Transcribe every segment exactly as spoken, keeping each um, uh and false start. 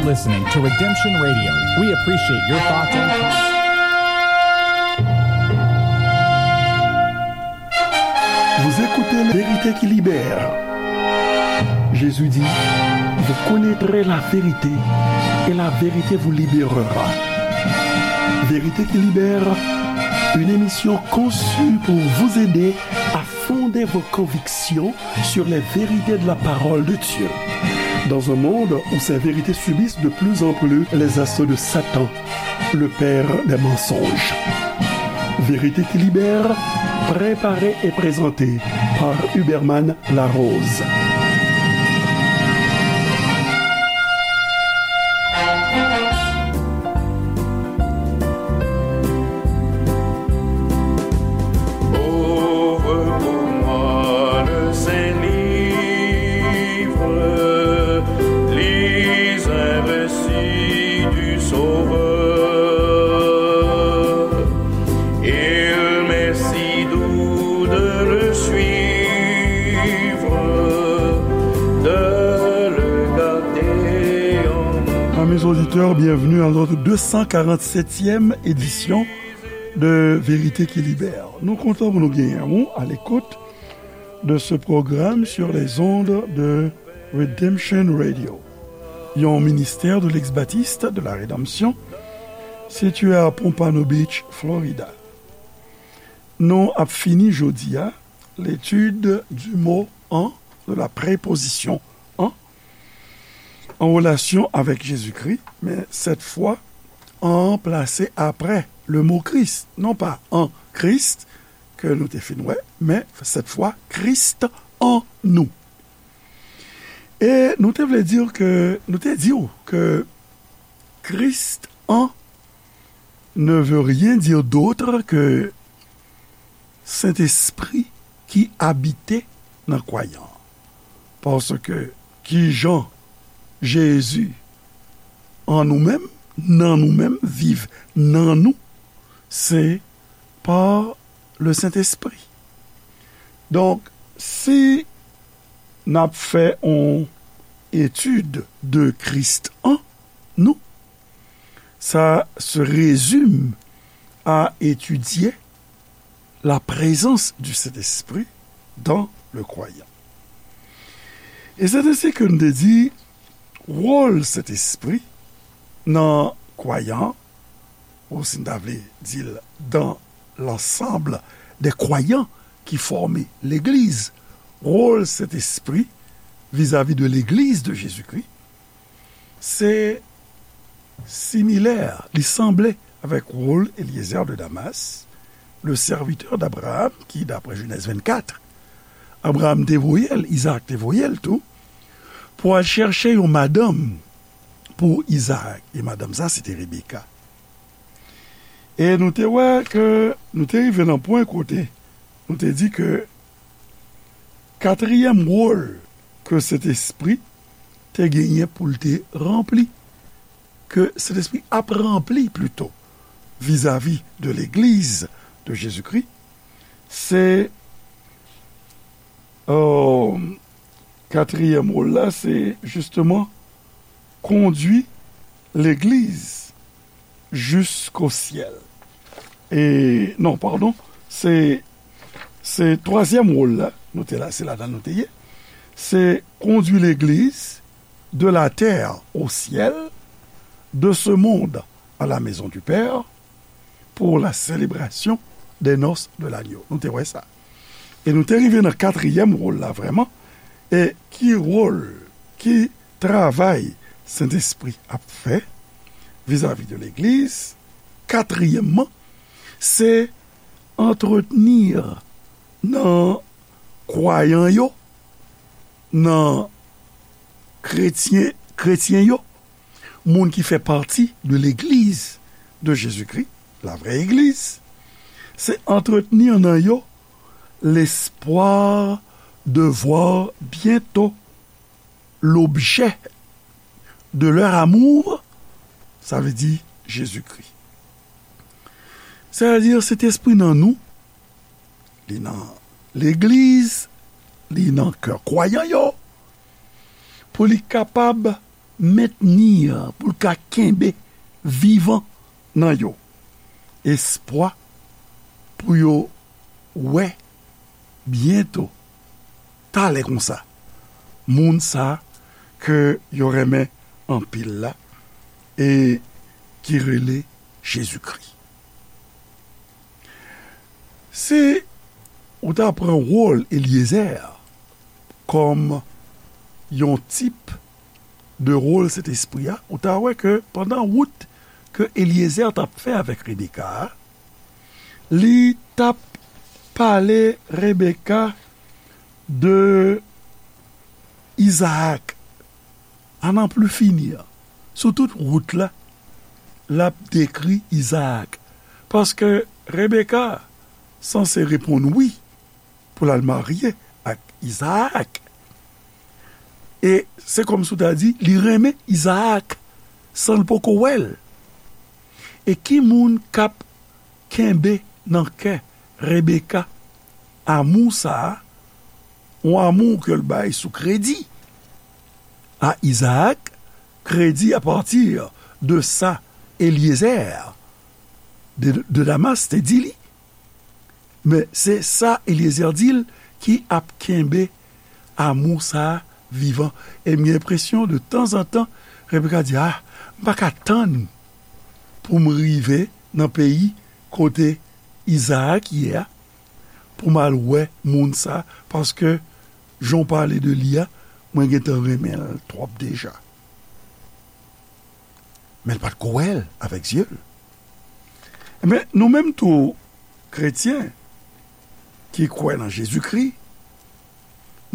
Listening to Redemption Radio. We appreciate your thoughts and comments. Vous écoutez La Vérité qui libère. Jésus dit, vous connaîtrez la vérité et la vérité vous libérera. Vérité qui libère, une émission conçue pour vous aider à fonder vos convictions sur les vérités de la parole de Dieu. Dans un monde où ces vérités subissent de plus en plus les assauts de Satan, le père des mensonges. Vérité qui libère, préparée et présentée par Huberman Larose. Ouvre pour moi le Saint-Livre, lis un récit du Sauveur. Il m'est si doux de le suivre, de le garder en Amis auditeurs, bienvenue à notre deux cent quarante-septième édition de Vérité qui Libère. Nou kontan pou nou genyen ou à l'écoute de ce programme sur les ondes de Redemption Radio, yon ministère de l'ex-baptiste de la rédemption, situé à Pompano Beach, Florida. Nou ap fini jodi a l'étude du mot en, de la préposition en, en relation avec Jésus-Christ, mais cette fois en plase après le mot Christ, non pas en Christ, ke nou te fin wè, men cette fois Christ en nous. E nou te vle di ke, nou te di w ke Christ en ne veut rien dire d'autre que Sentespri ki abite nan kwayan an. Paske kijan Jezi an nou menm, nan nou menm, viv nan nou, se pa le Sentespri. Donk, si n ap fè yon etid de Christ en nous, ça se résume à étudier la présence du Saint-Esprit dans le croyant. E se de sa ke n te di, wòl Sentespri nan kwayan, ou si n ta vle di l, dans l'ensemble des croyants qui forment legliz, wòl Sentespri vizavi de legliz de Jezikri, se similè, li sanble avèk wòl Eliezer de Damas, le serviteur d'Abraham, ki, daprè Jenèz vennkat, Abraham te voye l, Izaak te voye l tou, pou al chèche yon madanm pou Izaak. E madanm sa, se te Rebeka. E nou te wè ke nou te rive nan pwen kote nou te di ke katriyèm wòl ke Sentespri te genyen pou l te ranpli, ke Sentespri ap ranpli plito, vizavi de legliz de Jezikri, se, euh, katriyèm wòl la, se jisteman kondui legliz jusqu'au ciel. E, non, padon, se, se twazyèm wòl la, nou te la, se ladan nou te ye. Se conduire l'Église de la terre au ciel, de ce monde à la maison du Père, pour la célébration des noces de l'agneau. Nou te wè sa. E nou te rive nan katriyèm wòl la vrèman. E ki wòl, ki travay Sentespri ap fè vizavi de legliz? Katriyèmman, se antretni nan kwayan yo, nan kretyen, kretyen yo, moun ki fè pati de legliz de Jezikri, la vraie église, se antretni nan yo l'espoir de voir bientôt l'objet de leur amour, sa vle di Jezikri. Sètadi, Sentespri nan nou, li nan legliz, li nan kè kwayan yo, pou li kapab mentni, pou l ka kenbe vivan nan yo espwa pou yo wè byento, talè konsa, moun sa ke yo renmen anpil la, e ki rele Jezikri. Si ou ta pran wòl Elyezè kòm yon tip de wòl Sentespri a, ou ta wè ke pandan wout ke Elyezè t ap fè avèk Rebeka a, li t ap pale Rebeka de Izaak, à n'en plus finir. Sou tout wout la, l ap dekri Izaak. Paske Rebeka sanse reponn wi pou l al marye ak Izaak. E se kòmsi w ta di, li renmen Izaak san l poko wè l. E ki moun k ap kenbe nan kè Rebeka amou sa a, yon amou ke l bay sou kredi a Izaak, kredi à partir de sa Elyezè de, de Damas te di li. Men se sa Elyezè di l ki ap kenbe amou sa a vivan. E m gen enpresyon de tanzantan, Rebeka di, ah, m pa ka tann pou m rive nan peyi kote Izaak ye a, pou m al wè moun sa, paske jan w pale de li a, mwen gentan renmen l twòp deja. Men l pa t ko wè l avèk zye l. Ebyen, nou menm tou, kretyen ki kwè nan Jezikri,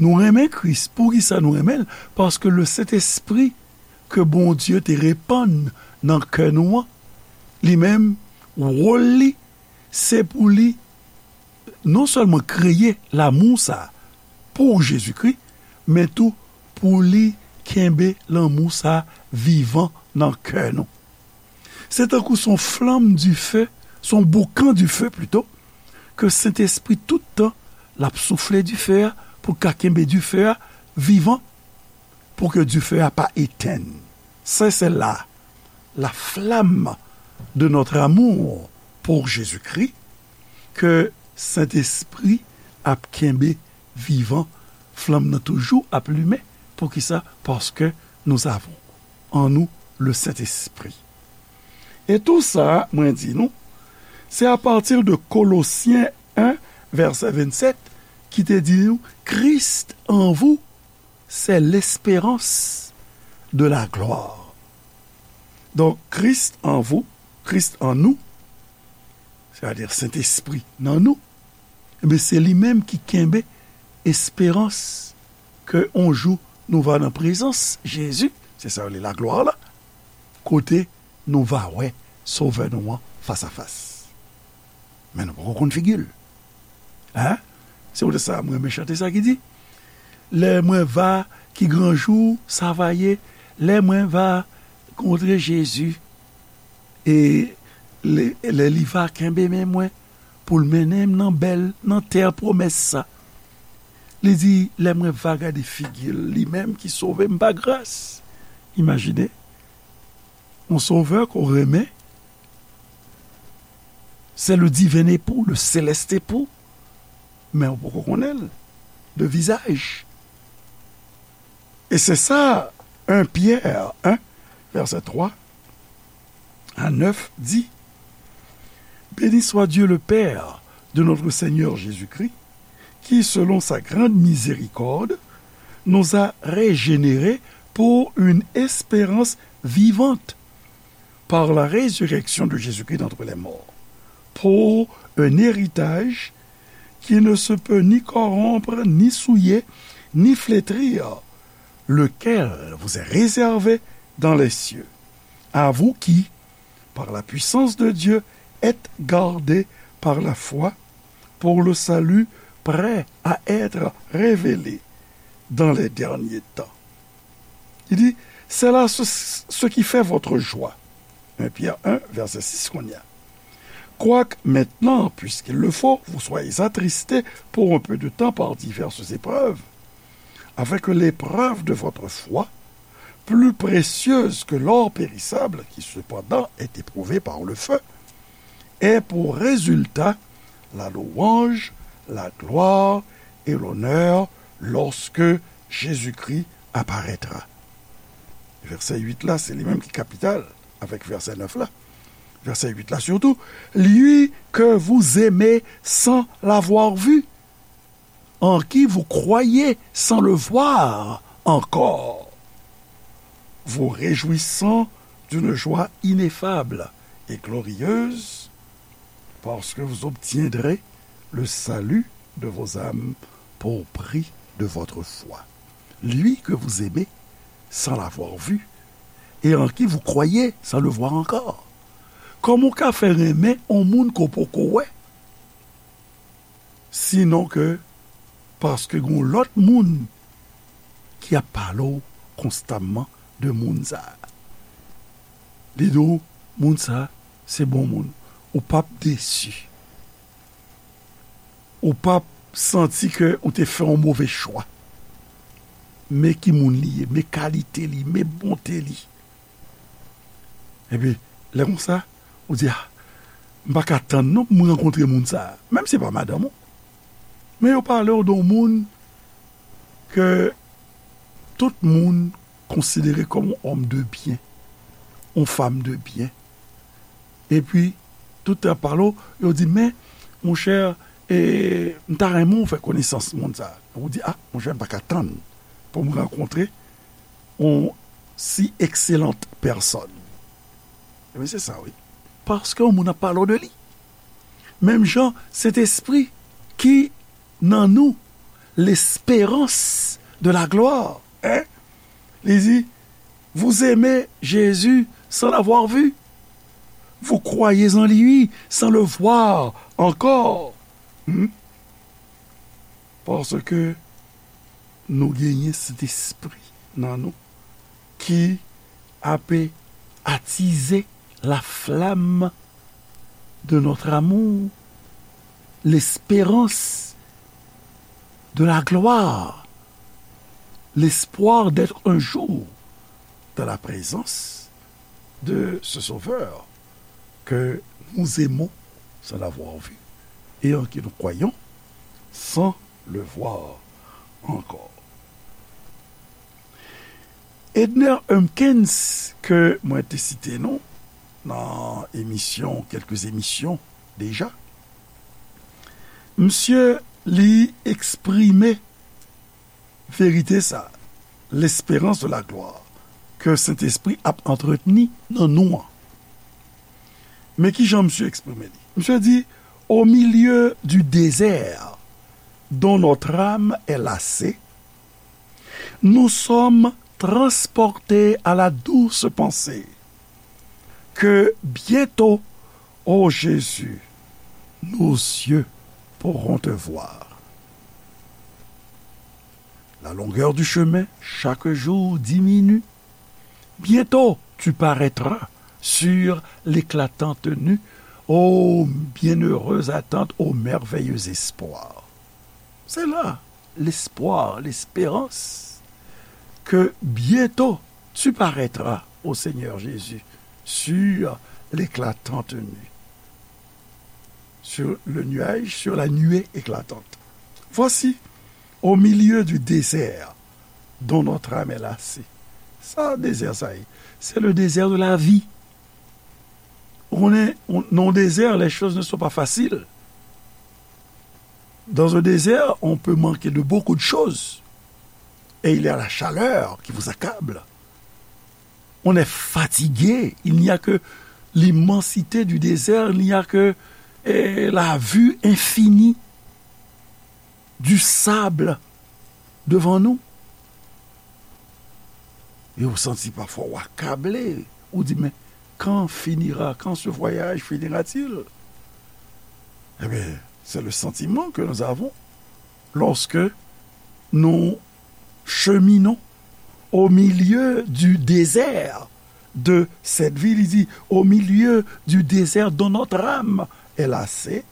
nou renmen Kris. Poukisa nou renmen l? Paske le Sentespri ke Bondye te repann nan kè nou an, li menm, wòl li, se pou li non sèlman kreye lanmou sa a pou Jezikri, men tou pou li kenbe lanmou sa a vivan nan kè nou. Se tankou se yon flanm dife, se yon boukan dife pito, ke Sentespri tout tan l ap soufle dife a pou l ka kenbe dife a vivan, pou ke dife a pa etenn. Se, se la, la flamme de notre amour pour Jésus-Christ, ke Sentespri ap kenbe vivan, flanm nan toujou ap limen. Poukisa? Paske nous avons en nous le Saint-Esprit. E tou sa, mwen di nou, se apati de Kolosyen en, vèsè vennsèt, ki te di nou, Christ en vous, c'est l'espérance de la gloire. Donk, Christ en vous, Christ en nous, sètadi Sentespri nan nou, ebyen, se li menm ki kenbe esperans ke yon jou nou va nan prezans Jezi, se sa yo rele laglwa la, kote nou va wè Sovè nou an fasafas. Men nou poko konn figi l. Hein? Se poutèt sa mwen renmen chante sa ki di, lè mwen va, ki gran jou sa va ye, lè mwen va kontre Jezi, e lè, lè li va kenbe men mwen pou l mennen m nan bèl, nan tè pwomès sa. Li di, lè mwen va gade figi l, li menm ki sove m pa gras. Imajine, yon Sovè ke w renmen, c'est le divin époux, le céleste époux, men ou poko konnen l de vizaj. E se sa, en Pierre un, vèsè twa a nèf di, Béni soit Dieu le Père de notre Seigneur Jésus-Christ, qui, selon sa grande miséricorde, nous a régénérés pour une espérance vivante par la résurrection de Jésus-Christ d'entre les morts, pour un héritage qui ne se peut ni corrompre, ni souiller, ni flétrir, lequel vous est réservé dans les cieux. À vous qui, par la puissance de Dieu, êtes gardés par la foi pour le salut prêt à être révélé dans les derniers temps. Il dit, c'est là ce, ce qui fait votre joie. Un Pierre un, verset six, qu'on y a. Quoique maintenant, puisqu'il le faut, vous soyez attristés pour un peu de temps par diverses épreuves, afin que l'épreuve de votre foi, plus précieuse que l'or périssable, qui cependant est éprouvé par le feu, ait pour résultat la louange, la gloire et l'honneur lorsque Jésus-Christ apparaîtra. Vèsè uit la, se li menm ki kapital avèk vèsè nèf la. Vèsè uit la surtout, lui que vous aimez sans l'avoir vu, en qui vous croyez sans le voir encore, vous réjouissant d'une joie ineffable et glorieuse, parce que vous obtiendrez le salut de vos âmes pour prix de votre foi. Lui que vous aimez sans l'avoir vu, et en qui vous croyez sans le voir encore. Kòman w ka fè renmen yon moun ke w poko wè? Sinon ke paske gon lòt moun ki ap pale w konstamman de moun sa a. Li di w, moun sa a, se bon moun. Ou p ap desi. Ou p ap santi ke ou te fè yon move chwa. Men ki moun li ye, men kalite li, men bonte li. Epi, lè konsa, ou di, ah, m pa ka tann non pou m rankontre moun sa a. Menm si se pa madanm ou. Men yo pale w de yon moun ke tout moun konsidere kòm yon òm de byen, yon fanm de byen. Epi, tout tan pale w, yo di, men, monchè, e, m ta renmen w fè konesans moun sa a. Ou di, ah, monchè, m pa ka tann pou m rankontre yon si excellente personne. Ebyen, se sa, wi. Paske yon moun ap pale w de li. Menm jan, Sentespri ki nan nou, l'espérance de la gloire, hein? Li di, vous aimez Jésus sans l'avoir vu. Vous croyez en lui sans le voir encore. Hmm? Paske nou genyen Sentespri nan nou ki ape atize la flamme de notre amour, l'espérance de la gloire, l'espoir d'être un jour dans la présence de ce Sauveur que nous aimons sans l'avoir vu et en qui nous croyons sans le voir encore. Edner Humpkins, ke mwen te site non nan emisyon, kèlke emisyon deja, misye li eksprime verite sa, l'espérance de la gloire, ke Sentespri ap antretni nan nou an. Men ki jan misye eksprime li? Misye di, au milieu du désert dont notre âme est lassée, nous sommes transportés à la douce pensée que bientôt, ô Jésus, nos yeux pourront te voir. La longueur du chemin chaque jour diminue. Bientôt, tu paraîtras sur l'éclatante nue. Ô bienheureuse attente, ô merveilleux espoir. C'est là l'espoir, l'espérance que bientôt tu paraîtras, ô Seigneur Jésus, sur l'éclatante nuée, sur le nuage, sur la nuée éclatante. Voici, au milieu du désert dont notre âme est lassée. Sa, dezè sa ye? C'est le désert de la vie. On est, on, dans le désert, les choses ne sont pas faciles. Dans un désert, on peut manquer de beaucoup de choses. Et il y a la chaleur qui vous accable. On est fatigué. Il n'y a que l'immensité du désert, il n'y a que, eh, la vue infinie du sable devant nous. E ou santi pafwa ou akable. Ou di, mais quand finira, quand ce voyage finira-t-il? Eh bien, c'est le sentiment que nous avons lorsque nous cheminons au milieu du désert de cette vie. Il dit, au milieu du désert dont notre âme est lassée,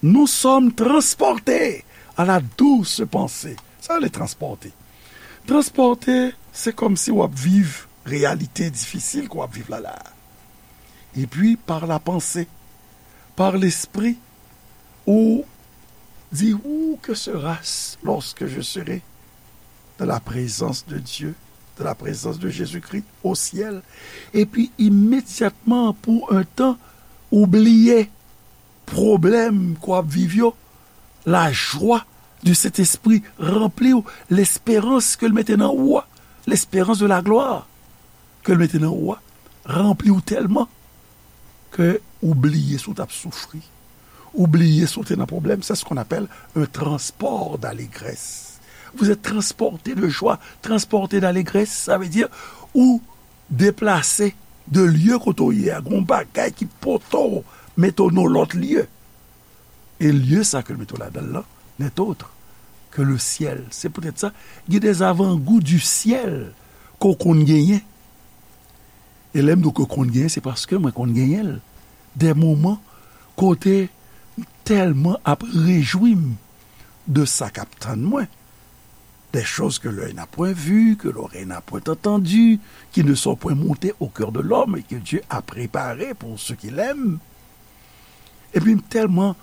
nous sommes transportés à la douce pensée. Sa, les transporter. Transpòte, se kòmsi w ap viv reyalite difisil ke w ap viv la la. Epi, par la panse, par lespri, ou di, où que sera-ce lorsque je serai dans la présence de Dieu, dans la présence de Jésus-Christ au ciel? Epi, imedyatman, pou yon tan, ou bliye pwoblèm ke w ap viv yo, lajwa de Sentespri ranpli w, lesperans ke l mete nan ou a, lesperans de la glwa ke l mete nan ou a, ranpli w tèlman ke ou bliye si w t ap soufri, ou bliye si w te nan pwoblèm. C'est ce qu'on appelle un transport d'allégresse. Vous êtes transporté de joie, transporté d'allégresse, ça veut dire ou deplase de lye kote w ye a, gen yon bagay ki pote w, mete w nan lòt lye. E lye sa ke l mete w ladan l lan, n'est autre que le ciel. Se poutèt sa, gen des avant-goûts du ciel ke w konn genyen. E lè m di w ke w konn genyen, se paske mwen konn genyen l. Des moments kote m tèlman ap rejwi m de sa k ap tann mwen. Des choses que l'œil n'a point vues, que l'oreille n'a point entendues, qui ne sont point montées au cœur de l'homme et que Dieu a préparées pour ceux qui l'aiment. Epi m tèlman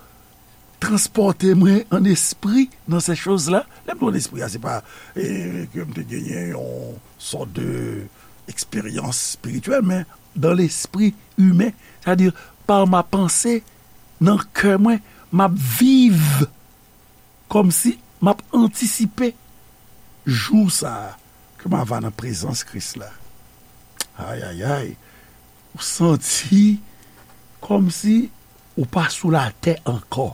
transpòte mwen an espri nan ces choses-là. Lè m di w an espri a, se pa eh, ke m te genyen yon sòt de eksperyans espirityèl, men dans l'esprit humain, c'est-à-dire par ma pensée, nan kè mwen, m ap viv kòmsi m ap antisipe jou sa a ke m a va nan prezans Kris la. Ayayay, ou santi kòmsi ou pa sou latè ankò.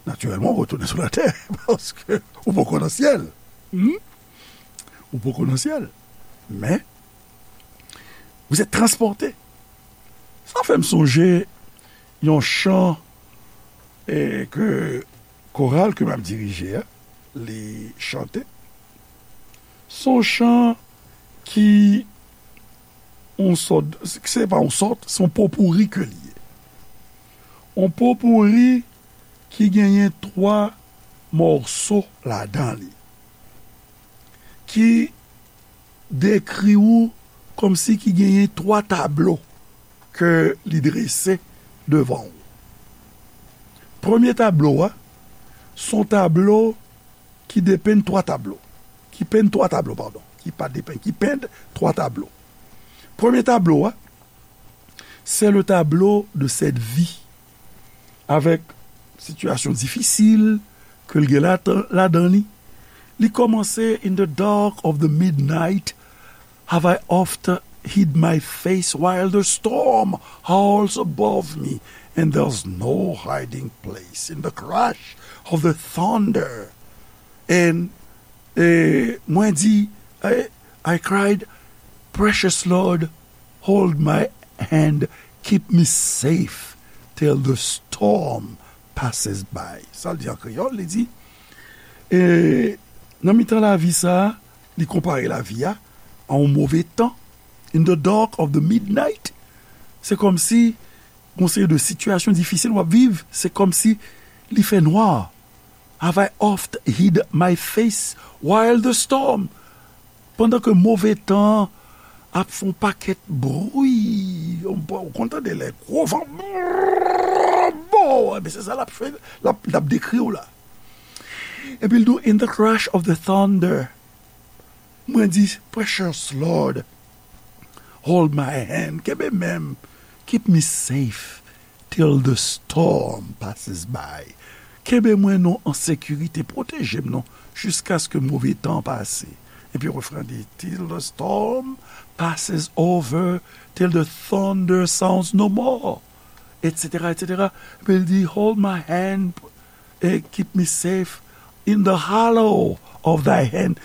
Natirèlman, ou retounen sou latè paske ou poko nan syèl. Hmm? Ou poko nan syèl. Men, vous êtes transporté. Sa fè m sonje yon chan eh, ke koral ke m ap dirije a, li chante. Se yon chan ki yon sòt, se pa yon sòt, se yon popouri ke li ye. Yon popouri ki genyen twa mòso ladan li, ki dekri ou kòmsi ki genyen twa tablo ke li drese devan ou. Premye tablo a, se yon tablo ki depenn twa tablo, ki penn twa tablo, padon, ki pa depenn, ki penn twa tablo. Premye tablo a, c'est le tableau de cette vie, avèk sitiyasyon difisil ke l gen ladan, ladan li. Li kòmanse: In the dark of the midnight have I oft hid my face while the storm howls above me, and there's no hiding place in the crash of the thunder. And eh, mwen di, eh, I cried, Precious Lord, hold my hand, keep me safe till the storm passes by. Sa l di an kreyòl, li di, eh, nan mitan lavi sa a, li konpare lavi a a yon move tan. In the dark of the midnight, se kòmsi yon seri de sitiyasyon difisil w ap viv, se kòmsi li fè nwa. Have I oft hid my face while the storm? Pandan ke move tan an ap fè yon pakèt bri, ou konn tande lè gwo van, bon, ebyen se sa l ap fè, l ap, l ap dekri w la. Epi l di w, in the crash of the thunder, mwen di, Precious Lord, hold my hand, kenbe men m, keep me safe till the storm passes by. Kenbe mwen non an sekirite, pwoteje m non, jiskaske move tan an pase. Epi refren an di, till the storm passes over, till the thunder sounds no more, et cetera, et cetera. Epi l di, hold my hand, and keep me safe in the hollow of thy hand.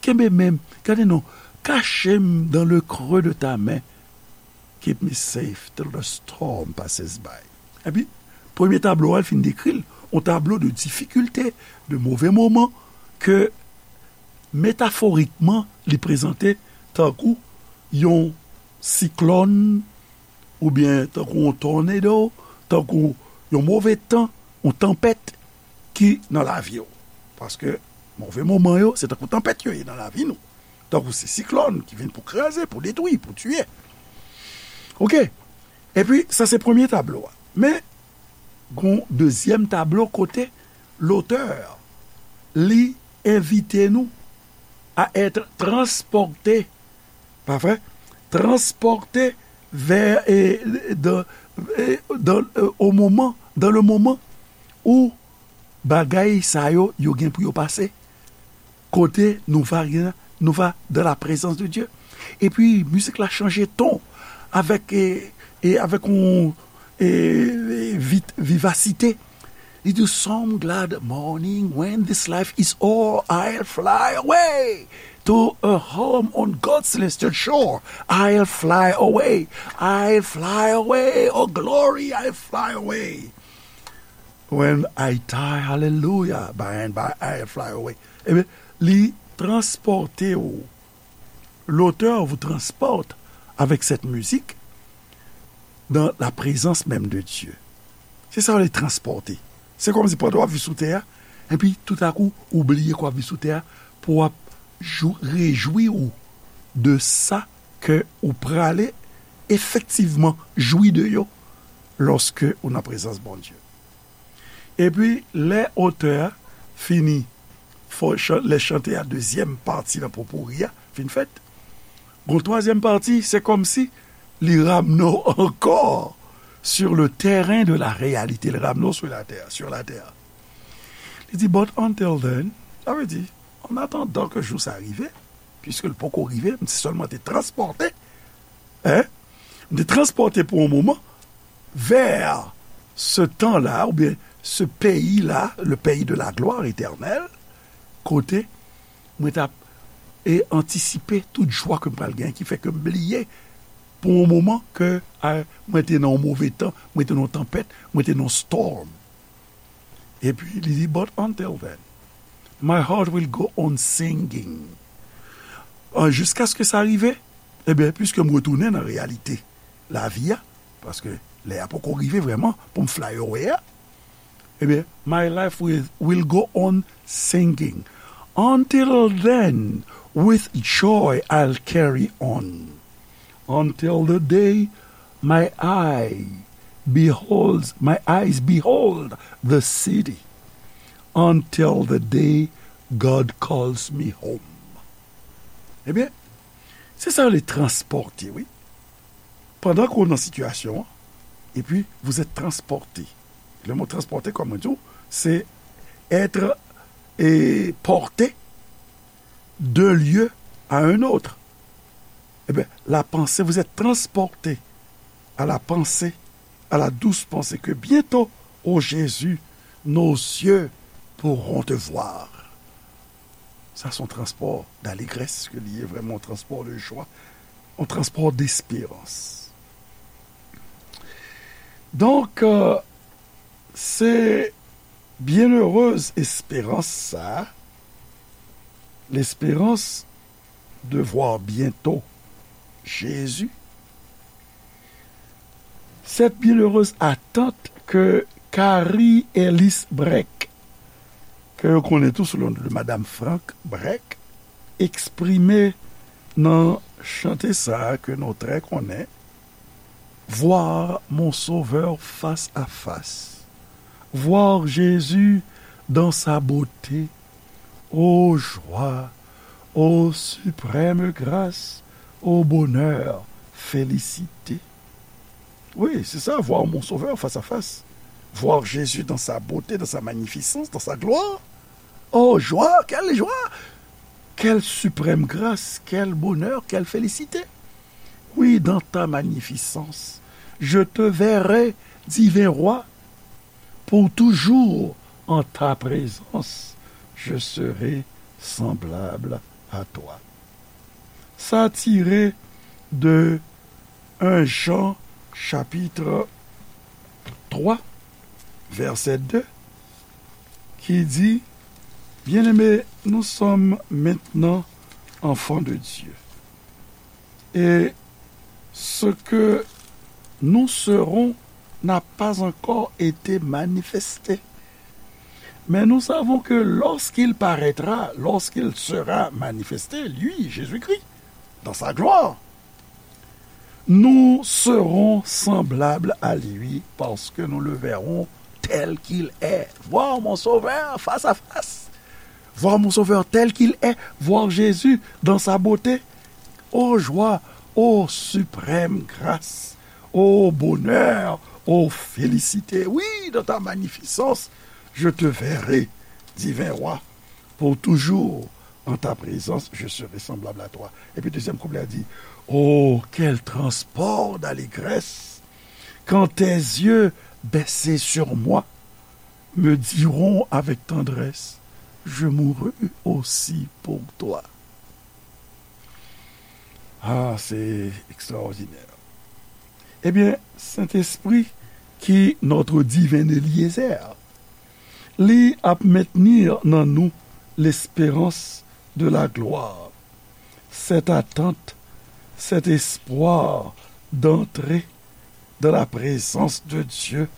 Kenbe men m, gade non, kache m dans le creux de ta main. Keep me safe till the storm passes by. Epi, premye tablo a, l fin dekri l, yon tablo de difikilte, de move moman, ke metaforikman, li prezante tankou yon siklòn, oubyen tankou yon tornado, tankou yon move tan, yon tanpèt ki nan lavi w. Paske Move moman yo, se tankou tanpèt yo ye nan lavi nou. Tankou se siklòn ki vin pou kraze, pou detwi, pou tiye. Oke. Epi, sa se premye tablo a. Men, gon dezyèm tablo kote lotè, li envite nou à être transportés, pa vre? Transportés vers, et, dans, et dans, euh, au moment, dans le moment où bagay sa yo, yo gen pou yo pase. Kote nou va gen, nou va dans la présence de Dieu. Epi, mizik la chanje ton avèk, e, e avèk yon, e, e, vit, vivasite. Li di, "Some glad morning when this life is o'er, I'll fly away to a home on God's celestial shore. I'll fly away, I'll fly away, oh glory, I'll fly away. When I die, hallelujah, by and by I'll fly away." Ebyen, li transpòte w. L'auteur vous transporte avec cette musique dans la présence même de Dieu. Se sa w rele transpòte. Se kòmsi pandan w ap viv sou tè a, epi toutakou, ou bliye ke w ap viv sou tè a, pou w ap jou, rejwi w de sa ke ou prale efektivman jwi de yo lòske ou nan prezans Bondye. Epi, lè otè a fini, fò chan-, lè chante a, dezyèm pati nan popouri a fin fèt, gon twazyèm pati, se kòmsi li ramne w ankò sur le terrain de la réalité, li ramne w sou latè, sur la terre. Li di, "But until then," sa vle di, an atandan ke jou sa rive, piske l poko rive, m te sèlman te transpòte, hein? M te transpòte pou yon moman vers ce temps-là, oubyen ce pays-là, le pays de la gloire éternelle, kote mwen t ap, e, antisipe tout jwa ke m pral gen, ki fè ke m bliye pou yon moman ke, a, mwen te nan yon move tan, mwen te nan yon tanpèt, mwen te nan yon storm. Epi, li di, "But until then, my heart will go on singing." An, jiskaske sa rive, ebyen, piske m retounen nan reyalite lavi a, paske lè a poko rive vrèman pou m fly away a, ebyen, my life will, will go on singing. Until then, with joy I'll carry on. Until the day my eye beholds, my eyes behold the city. Until the day God calls me home. Ebyen, se sa yo rele transpòte, wi. Pandan ke w nan sitiyasyon an, epi vous êtes transporté. Le mot transporté, kòm mwen di w, se être, e, porté d'un lieu à un autre. Ebyen, la pensée, vous êtes transporté à la pensée, à la douce pensée que bientôt, ô Jésus, nos yeux pourront te voir. Sa se yon transpò d'allégresse ke li ye, vrèman yon transpò de jwa, yon transpò desperans. Donk, euh, se byennerez esperans sa, l'espérance de voir bientôt Jésus, cette bienheureuse attente que Carrie Ellis Breck, ke yo konnen tou sou le non de Madame Frank Breck, eksprime nan chante sa a ke nou trè konnen, Voir mon Sauveur face à face, voir Jésus dans sa beauté, ô joie, ô suprême grâce, ô bonheur, félicité. Oui, c'est ça, voir mon Sauveur face à face. Voir Jésus dans sa beauté, dans sa magnificence, dans sa gloire. Oh, joie, quelle joie! Quelle suprême grâce, quel bonheur, quelle félicité! Oui, dans ta magnificence, je te verrai, divin roi, pour toujours en ta présence, je serai semblable à toi. Sa tire de un Jean chapitre trois, verset deux, ki di, Bien-aimés, nous sommes maintenant enfants de Dieu. Et ce que nous serons n'a pas encore été manifesté. Mais nous savons que lorsqu'il paraîtra, lorsqu'il sera manifesté, lui, Jésus-Christ, dans sa gloire, nous serons semblables à lui parce que nous le verrons tel qu'il est. Voir mon Sauveur face à face. Voir mon Sauveur tel qu'il est. Voir Jésus dans sa beauté. Ô joie, ô suprême grâce, ô bonheur, ô félicité. Oui, dans ta magnificence, je te verrai, divin roi, pour toujours en ta présence, je serai semblable à toi. Epi dezyèm kouplè a di, oh, quel transport d'allégresse quand tes yeux baissés sur moi me diront avec tendresse, je mourus aussi pour toi. Ah, c'est extraordinaire. Ebyen, Sentespri ki notre divin Eliezer, li ap mentni nan nou lesperans de la glwa, cette attente, cet espoir d'entrer dans la présence de Dieu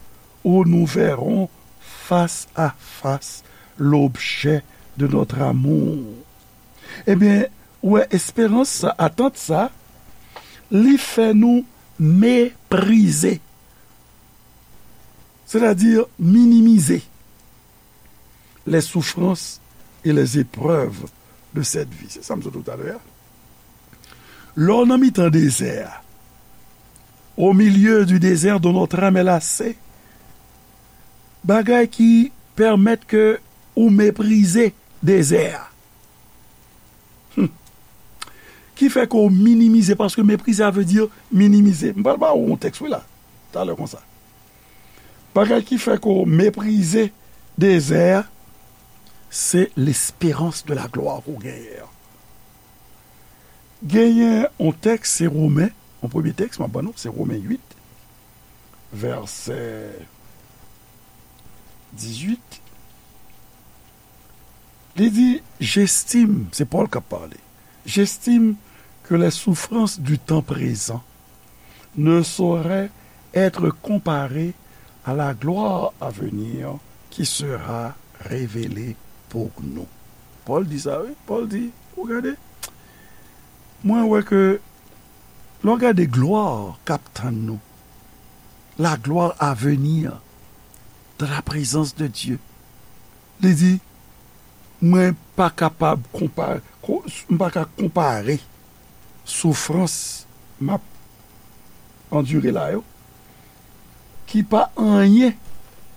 où nous verrons face à face l'objet de notre amour. Ebyen, ou wè, esperans sa, atant sa, li fè nou meprize, sètadi minimize les souffrances et les épreuves de cette vie. Se sa m sot di w talè a. Lè w nan mitan dezè a, au milieu du désert dont notre âme est lassée, bagay ki pèmèt ke ou meprize dezè a. Hmm. Ki fè ke w minimize, paske meprize a vle di minimize. M pral ba w yon tèks, wi, la, talè konsa. Bagay ki fè ke w meprize dezè a, se lesperans de la glwa ke w genyen an. Genyen yon tèks, se Women, yon premye tèks, m ap ban nou, se Women uit, vèsè dizuit. Li di, j'estime, se Pòl k ap pale, j'estime que les souffrances du temps présent ne sauraient être comparées à la gloire à venir qui sera révélée pour nous. Pòl di sa, wi. Pòl di, ou gade, mwen wè ke lè w gade glwa k ap tann nou, la gloire à venir dans la présence de Dieu. Li di, mwen pa kapab konpa-, ko-, m pa ka konpare soufrans m ap andire la yo, ki pa anyen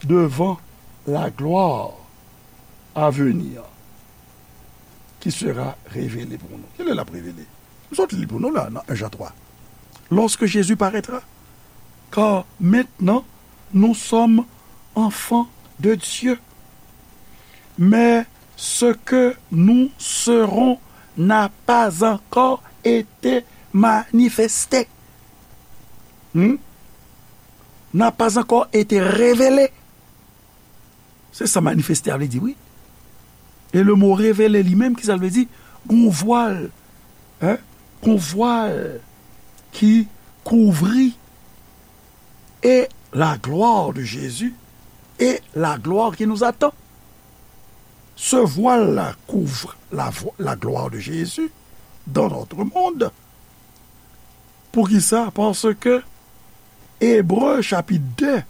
devan la gloire à venir qui sera révélée pour nous. Kilè l ap revele? M sot li pou nou la, nan en Jan twa. Lorsque Jésus paraîtra, car maintenant nous sommes enfants de Dieu. Mais ce que nous serons n'a pas encore été manifesté. Hmm? N'a pas encore été révélé. Se sa manifeste a vle di, wi. E le mo revele li menm, ki sa l vle di? Gon vwal, hein? Gon vwal ki kouvri et la gloire de Jésus et la gloire qui nous attend. Ce voile-là couvre la vo-, la gloire de Jésus dans notre monde. Poukisa? Paske Ebre chapit de,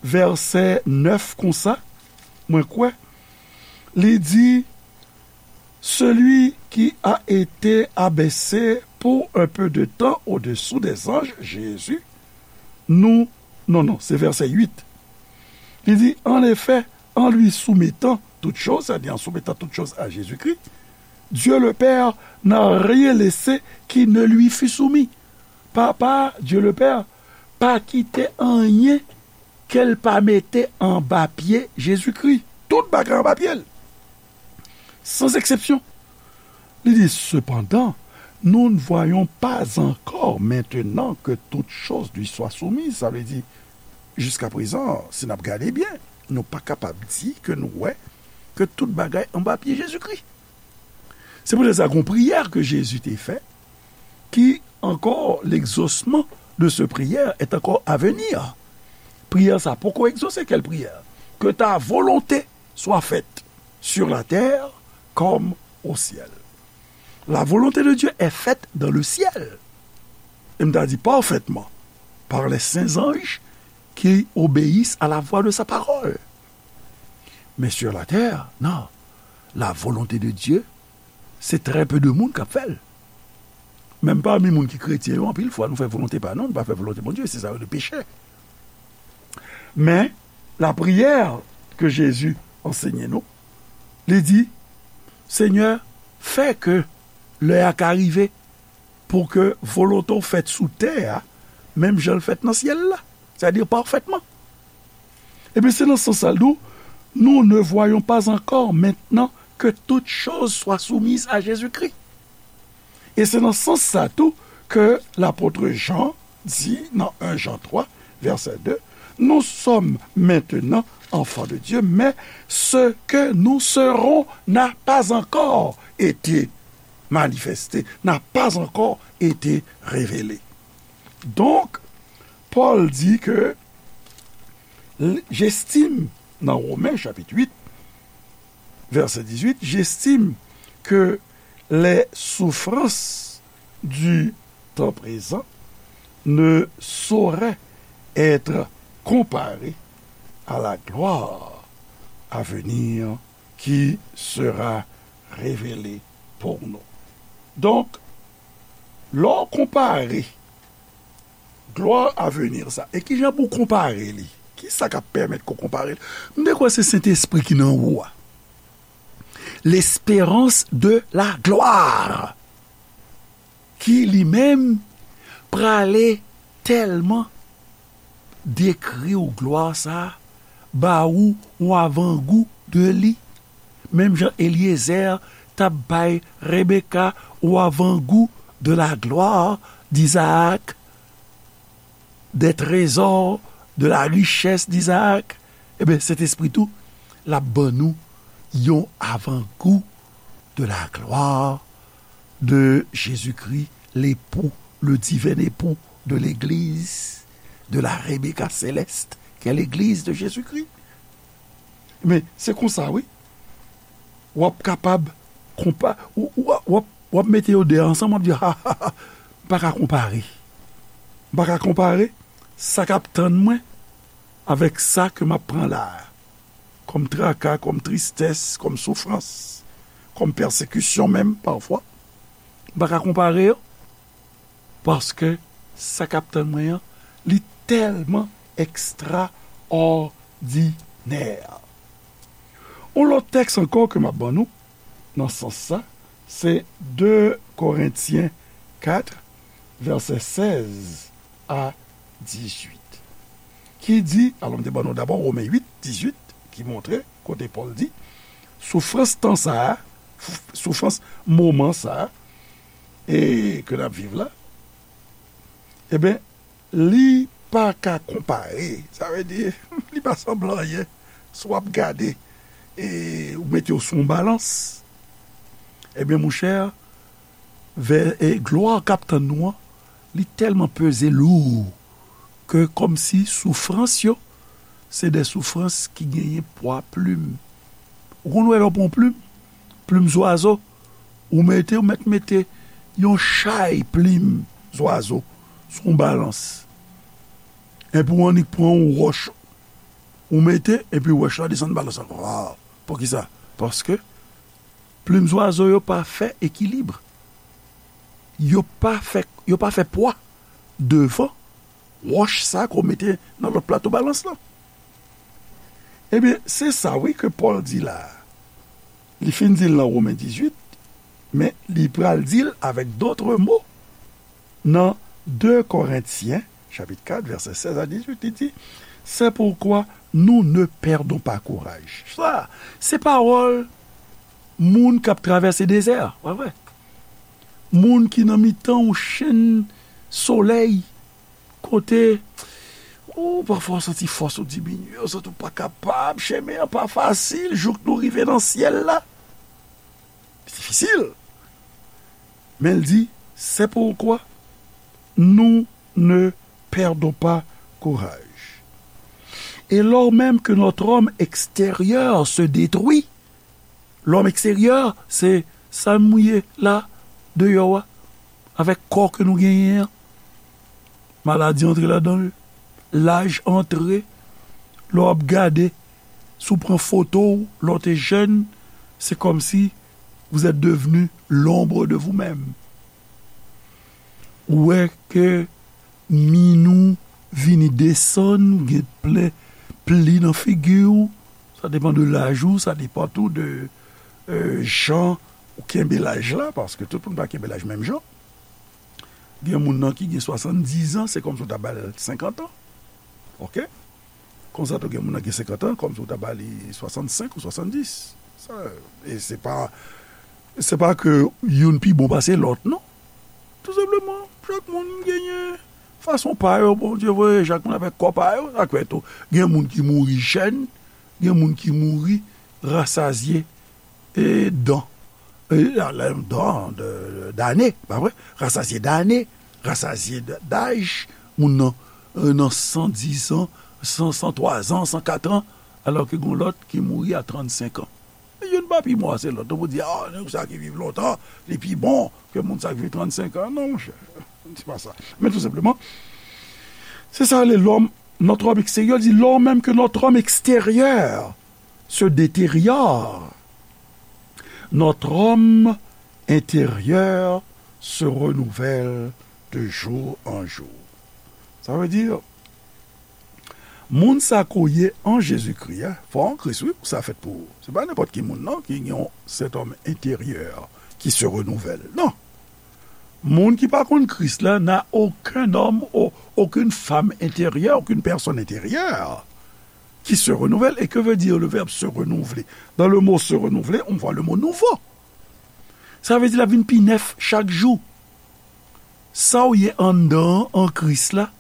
vèsè nèf konsa, mwen kwè, li di, celui qui a été abaissé pour un peu de temps au-dessous des anges, Jésus, nous, non, non, se vèsè uit. Li di, en effet, en lui soumettant toutes choses, c'est-à-dire en soumettant toutes choses à Jésus-Christ, Dieu le Père n'a rien laissé qui ne lui fût soumis. Papa, Dieu le Père, pa kite anyen ke l pa mete anba pye Jezikri. Tout bagay anba pye l. Sans exception. Li di, cependant, nous ne voyons pas encore maintenant que toutes choses lui soient soumises. Sa vle di, jiska prezan, si n ap gade byen, nou pa kapab di ke nou wè ke tout bagay anba pye Jezikri. Se poutèt sa, gon priyè ke Jezi te fè, ki ankò, l'exaucement de ce prière est encore à venir. Priyè sa poko egzose, quelle prière? Que ta volonté soit faite sur la terre comme au ciel. La volonté de Dieu est faite dans le ciel. Et m ta di parfaitement, par les saints anges qui obéissent à la voix de sa parole. Mais sur la terre, non. La volonté de Dieu, c'est très peu de monde qui fait. Menm pami moun ki kretyen yo, anpil fwa, nou fè volonte pa nou, nou pa fè volonte Bondye, se sa yo rele peche. Men, lapriyè ke Jezi ansenye nou, li di, Senyè, fè ke lè a ka rive pou ke volonte w fèt sou tè a, menm jan l fèt nan syèl la, sètadi pafètman. Ebyen, se nan sans sa l di w, nous ne voyons pas encore maintenant que toutes choses soient soumises à Jésus-Christ. E se nan sans sa tou ke lapot Jan di nan en Jan twa, vèsè de, nous sommes maintenant enfants de Dieu, mais ce que nous serons n'a pas encore été manifesté, n'a pas encore été révélé. Donk, Pòl di ke, j'estime, nan Women chapit uit, vèsè dizuit, j'estime que les souffrances du temps présent ne sauraient être comparées à la gloire à venir qui sera révélée pour nous. Donk, lè w konpare glwa avenir sa, e kijan pou w konpare li? Kisa k ap pèmèt ke w konpare li? M te kwè se Sentespri ki nan ou a. L'espérance de la gloire, ki li menm prale tèlman dekri w glwa sa a, ba ou yon avangou de li. Menm jan Elyezè t ap bay Rebeka yon avangou de la gloire d'Isaac, des trésors, de la richesse d'Isaac, ebyen, Sentespri tou, l ap ban nou yon avangou de la gloire de Jésus-Christ, l'époux, le divin époux de l'église, de la Rebecca céleste, qui est l'église de Jésus-Christ. Men, se konsa, wi. W ap kapab konpa-, w, w, w ap, w ap mete yo de ansanm, w ap di, ha, ha, ha, m pa ka konpare. M pa ka konpare sa k ap tann mwen avèk sa ke m ap pran la a. Kòm traka, kòm tristès, kòm soufrans, kòm pèsekisyon menm, pafwa. M pa ka konpare yo, paske sa k ap tann mwen an, li tèlman ekstraòdinè. Yon lòt tèks ankò ke m ap ban nou, nan sans sa, se de Korentyen kat, vèsè sèz a dizuit, ki di, alò, m te ban nou dabò Women uit, dizuit, ki montre kote Pòl di, soufrans tan sa a, soufrans moman sa a, e ke n ap viv la, ebyen, li pa ka konpare. Sa vle di, li pa sanble anyen. Si w ap gade, e ou mete yo sou yon balans, ebyen, monchè, vè, e glwa k ap tann nou an, li tèlman peze lou ke kòmsi soufrans yo, se de soufrans ki genyen pwa plim. Ou konn wè lè w pran yon plim, plim zwazo, ou mete, ou mèt mete yon chay plim zwazo sou yon balans. Epi w annik pran yon wòch, ou mete, epi wòch la desann balans la. Waw! Poukisa? Paske plim zwazo yo pa fè ekilib. Yo pa fè, yo pa fè pwa devan wòch sa ke w mete nan lòt plato balans lan. Ebyen, se sa, wi, ke Pòl di la a. Li fin di l nan Women dizuit, men li pral di l avèk dòt mo nan de Korentyen, chapit kat, vèsè sèz a dizuit, li di, c'est pourquoi nous ne perdons pas courage. Sa, se pawòl moun k ap travèse dezè, pa vre? Moun ki nan mitan yon chenn solèy, kote, ou pafwa w santi fòs ou diminye, ou santi w pa kapab, chemen an pa fasil, jouk nou rive nan syèl la. Difisil. Men l di, c'est pourquoi nous ne perdons pas courage. Et lors même que notre homme extérieur se détruit, lòm eksteryè, se sa nou ye la, deyò a, avèk kò ke nou genyen an. Maladi antre ladan l, laj antre, lè w ap gade, si w pran foto w, lè w te jèn, se kòmsi vous êtes devenu l'ombre de vous-même. Ou wè ke min ou vini desann, gen plen pli nan figi w. Sa depann de laj ou, sa depann tou de, euh, jan ou kenbe laj la, paske tout moun pa kenbe laj menm jan. Gen moun nan ki gen swasanndizan, se kòmsi w ta ba l senkant an. Oke? Konsa tou gen moun nan gen senkant an, kòmsi w ta ba li swasannsenk ou swasanndis. Sa, e se pa, se pa ke youn pi bon pase lòt, non. Tou senpleman, chak moun genyen fason pa yo, Bondye voye, chak moun avèk kò pa yo, sa k fè tou. Gen moun ki mouri jèn, gen moun ki mouri rasazye, e dan, e, a, la, dan, de, de, dane, pa vre? Rasazye dane, rasazye d-, daj, moun nan, e, nan san dis an, san, san twa zan, san kat an, alò ke gen lòt ki mouri a trannsenk an. Youn pa pi mò se lòt. Ou pou di, a, nèg sa ki viv lontan, li pi bon ke moun sa ki viv trannsenk an. Non, monchè, se pa sa. Men tou senpleman, se sa le lòm, notre homme extérieur, di, lors même que notre homme extérieur se détériore, notre homme intérieur se renouvelle de jour en jour. Sa vle di, moun sa ke w ye an Jezikri a, fò w an Kris, wi, pou sa fèt pou ou. Se pa nenpòt ki moun, non, ki gen yon cet homme intérieur qui se renouvelle. Non. Moun ki pa konn Kris la n'a aucun homme, au-, aucune femme intérieure, aucune personne intérieure qui se renouvelle. Et que veut dire le verbe se renouveler? Dans le mot se renouveler, on voit le mot nouveau. Sa vle di l ap vin pi nèf chak jou. Sa w ye anndan an, an Kris la,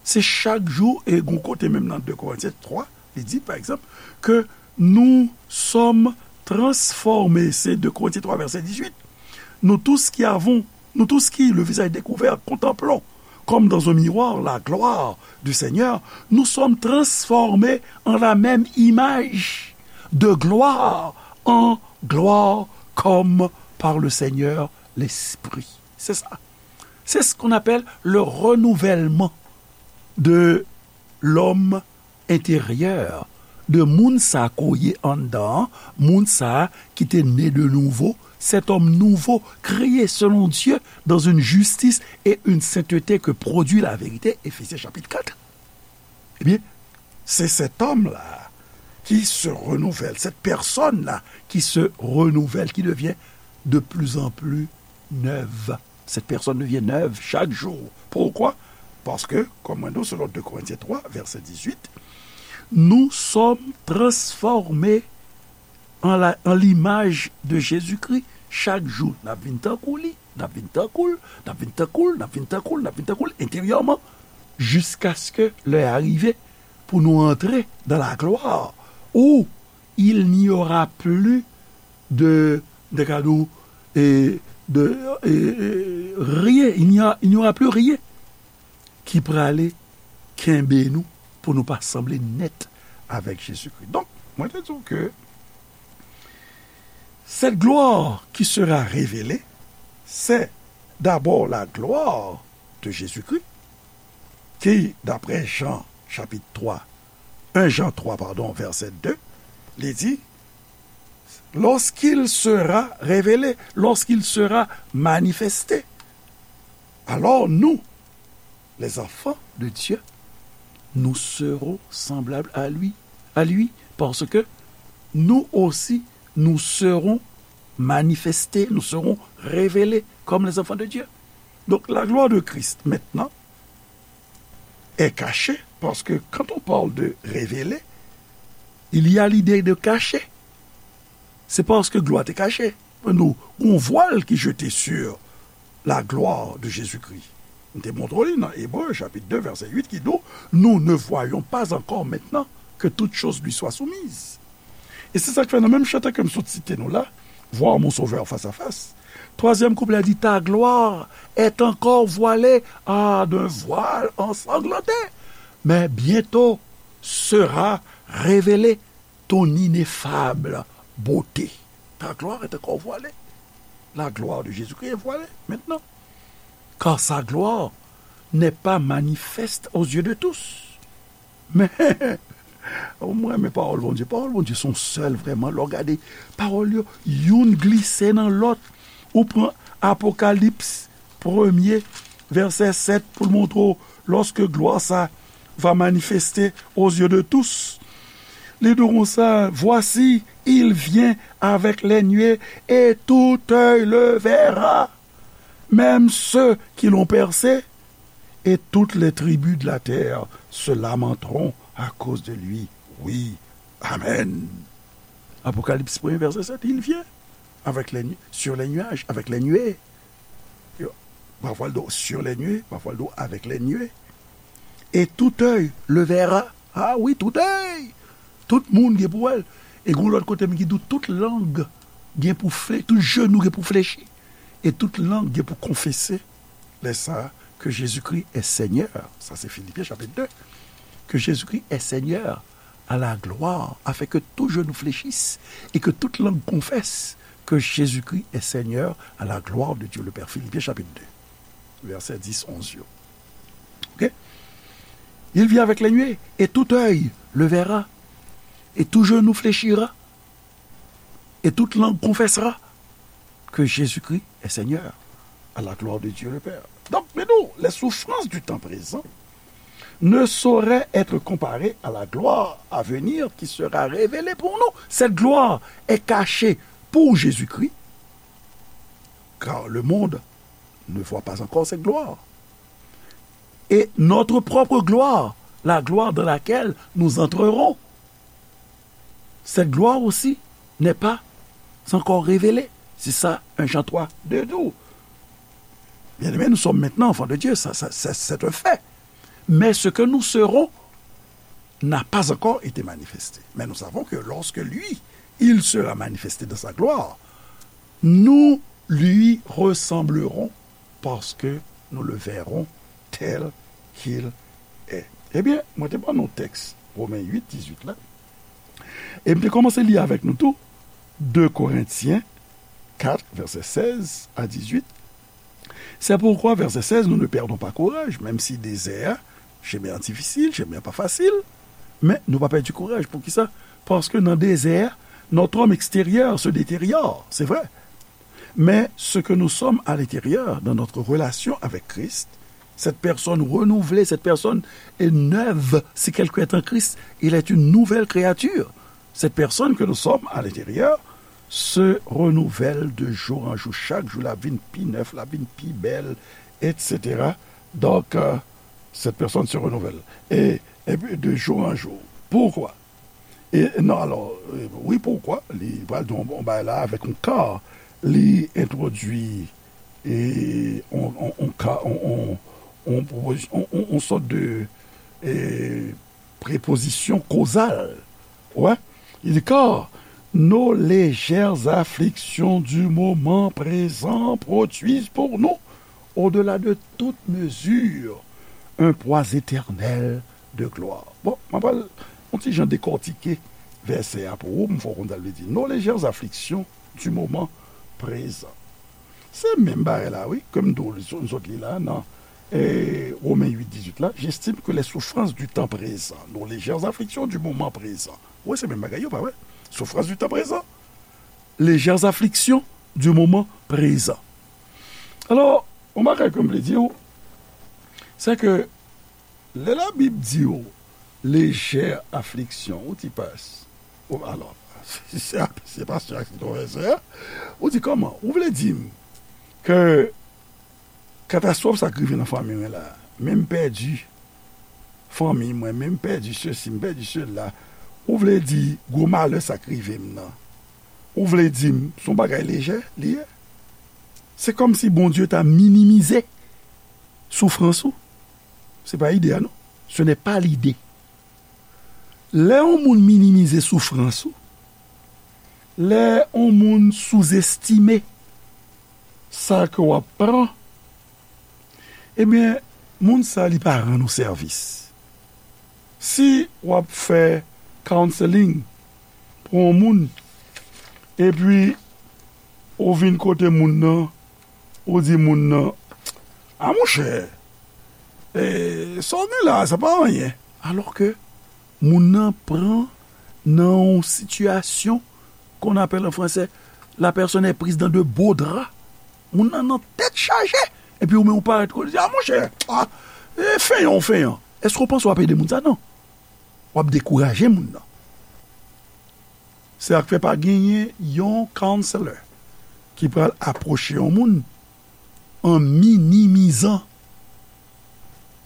se chak jou, e gon kote menm nan de Korentyen twa, li di, pa egzanp, que nous sommes transformés, c'est de Korentyen twa, vèsè dizuit. Nous tous qui avons, nous tous qui, le visage découvert, contemplons, comme dans un miroir, la gloire du Seigneur, nous sommes transformés en la même image, de gloire en gloire, comme par le Seigneur l'Esprit. C'est ça. C'est ce qu'on appelle le renouvellement de l'homme intérieur, de moun sa ke w ye anndan an, moun sa ki te ne de nouveau, cet homme nouveau, créé selon Dieu, dans une justice et une sainteté que produit la vérité, Éphésiens chapitre quatre. Ebyen, c'est cet homme-là qui se renouvelle, cette personne-là qui se renouvelle, qui devient de plus en plus neuve. Cette personne devient neuve chaque jour. Pourquoi? Paske, kòm mwen di w, selon de Korentyen twa, vèsè dizuit, nous sommes transformés en la, en l'image de Jésus-Christ. Chak jou, n ap vin tankou li, n ap vin tankou l, n ap vin tankou l, n ap vin tankou l, n ap vin tankou l enteryèman, jiskaske lè a rive pou nou antre dans la gloire, où il n'y aura plus de, de kado, e, de, e, e, rien, il n'y a, il n'y aura plus rien ki prale kenbe nou pou nou pa sanble nèt avèk Jezikri. Donk, mwen te di w ke cette gloire qui sera révélée, c'est d'abord la gloire de Jésus-Christ, ki, d'après Jean chapitre trois, un Jean trois, pardon, verset deux, li di, lorsqu'il sera révélé, lorsqu'il sera manifesté, alors nous, les enfants de Dieu, nous serons semblables à lui, à lui, parce que nous aussi, nous serons manifestés, nous serons révélés comme les enfants de Dieu. Donc, la gloire de Christ, maintenant, est cachée, parce que quand on parle de révéler, il y a l'idée de cacher. C'est parce que gloire est cachée. Nous, on voile qui jetait sur la gloire de Jésus-Christ. M te montre li nan Ebre, chapit de, vèsè uit, ki di w, nous ne voyons pas encore maintenant que toutes choses lui soient soumises. E se sa k fè nan menm chante ke m sot site nou la, Voir mon Sauveur face à face. Twazyèm kouplè a di, ta gloire est encore voilée, ah, d'un voile ensanglanté. Mais bientôt, sera révélée ton ineffable beauté. Ta gloire est encore voilée. La gloire de Jésus-Christ est voilée maintenant. Car sa gloire n'est pas manifeste aux yeux de tous. Men, mwen renmen pawòl Bondye. Pawòl Bondye se yon sèl vrèman. Lè w gade pawòl yo, youn glise nan lòt. Ou pran Apokalips premye, vèsè sèt, pou l montre w, lorsque gloire sa va manifester aux yeux de tous. Li di w konsa, voici, il vient avec les nuées, et tout œil le verra, même ceux qui l'ont percé, et toutes les tribus de la terre se lamenteront à cause de lui. Oui, amen. Apokalips premye, vèsè sèt, il vient avec les nu- sur les nuages, avec les nuées. Yo, pafwa l do sur les nuées, pafwa l do avec les nuées. Et tout œil le verra. Ah oui, tout œil. Tout moun gen pou wè l. E gon lòt kote m ki di w tout lang gen pou fle, tout jenou gen pou flechi. E tout lang gen pou konfese. Lè sa, que Jésus-Christ est Seigneur. Sa se Filipyen chapit de. Que Jésus-Christ est Seigneur à la gloire, afin que tout genou fléchisse et que toute langue confesse que Jésus-Christ est Seigneur à la gloire de Dieu le Père. Filipyen chapit de, vèsè dis, onz yo. Ok? Il vient avec les nuées, et tout œil le verra, et tout genou fléchira, et toute langue confessera que Jésus-Christ est Seigneur, à la gloire de Dieu le Père. Donc, mais non, les souffrances du temps présent ne sauraient être comparées à la gloire à venir qui sera révélée pour nous. Cette gloire est cachée pour Jésus-Christ, car le monde ne voit pas encore cette gloire. Et notre propre gloire, la gloire dans laquelle nous entrerons, cette gloire aussi n'est pas encore révélée. C'est ça, un Jean trois deux dit. Bien-aimés, nous sommes maintenant enfants de Dieu, ça, ça, ça, c'est un fait. Mais ce que nous serons n'a pas encore été manifesté. Mais nous savons que lorsque lui, il sera manifesté dans sa gloire, nous lui ressemblerons parce que nous le verrons tel qu'il est. Ebyen, mwen te ban nou tèks Women uit, dizuit la. E m te kòmanse li avèk nou tou, de Korentyen kat, vèsè sèz a dizuit. C'est pourquoi, verset seize, nous ne perdons pas courage, même si désert, chemin difficile, chemin pas facile, mais nou pa pèdi kouraj. Poukisa? Paske nan dezè, notre homme extérieur se détériore, c'est vrai. Mais ce que nous sommes à l'intérieur, dans notre relation avec Christ, cette personne renouvelée, cette personne est neuve, si quelqu'un est en Christ, il est une nouvelle créature. Cette personne que nous sommes à l'intérieur se renouvelle de jour en jour. Chak jou, l ap vin pi nèf, l ap vin pi bèl, et cetera. Donc, euh, cette personne se renouvelle. Et, et puis, de jour en jour. Pourquoi? E non, alò, e, wi, poukwa? Li pral di yon, yon bagay la avèk yon ka. Li entwodui, e, yon, yon, yon ka, yon, yon, yon pwopozi-, yon, yon, yon sòt de, e, prepozisyon kozal. Wè? Li di, car nos légères afflictions du moment présent produisent pour nous, au-delà de toute mesure, un poids éternel de gloire. Bon, mwen pral yon ti jan dekòtike vèsè a pou ou, m fè w konn sa l vle di. Nos légères afflictions du moment présent. Se menm bagay la, wi, ke m di w, nou sot li la, nan, e, Women uit dizuit la, j'estime que les souffrances du temps présent, nos légères afflictions du moment présent. Wi, se menm bagay yo, pa vre? Souffrance du temps présent, légères afflictions du moment présent. Alò, yon bagay ke m vle di w, se ke lè Labib di w lejè afliksyon, ou ti pas. Ou, alò, se, se, se pastè a ki tonbe sè a. Ou di kòman? Ou vle di m ke katastwòf sa k rive nan fanmi mwen la, men m pèdi fanmi mwen, men m pèdi sesi, m pèdi sela. Ou vle di gwo malè sa k rive m nan, ou vle di m se yon bagay lejè li ye? Se kòmsi Bondye ta minimize soufrans ou. Se pa ide a, non. Ce n'est pas l'idée. Lè yon moun minimize soufrans ou, lè yon moun souzestime sa ke w ap pran, ebyen, moun sa, li pa rann ou sèvis. Si w ap fè counseling pou yon moun, epi ou vin kote moun nan, ou di moun nan, a monchè, e, sa w gen la, sa pa anyen. Alò ke moun nan pran nan yon sitiyasyon qu'on appelle en français, la personne est prise dans de beaux draps. Moun nan nan tèt chaje. Epi ou menm ou parèt kote, ou di, a monchè, a, e, fenyan, ou fenyan. Èske w panse w ap ede moun sa? Non. W ap dekouraje moun nan. Se sa k fè pa genyen yon counselor ki pral apwoche yon moun en minimisant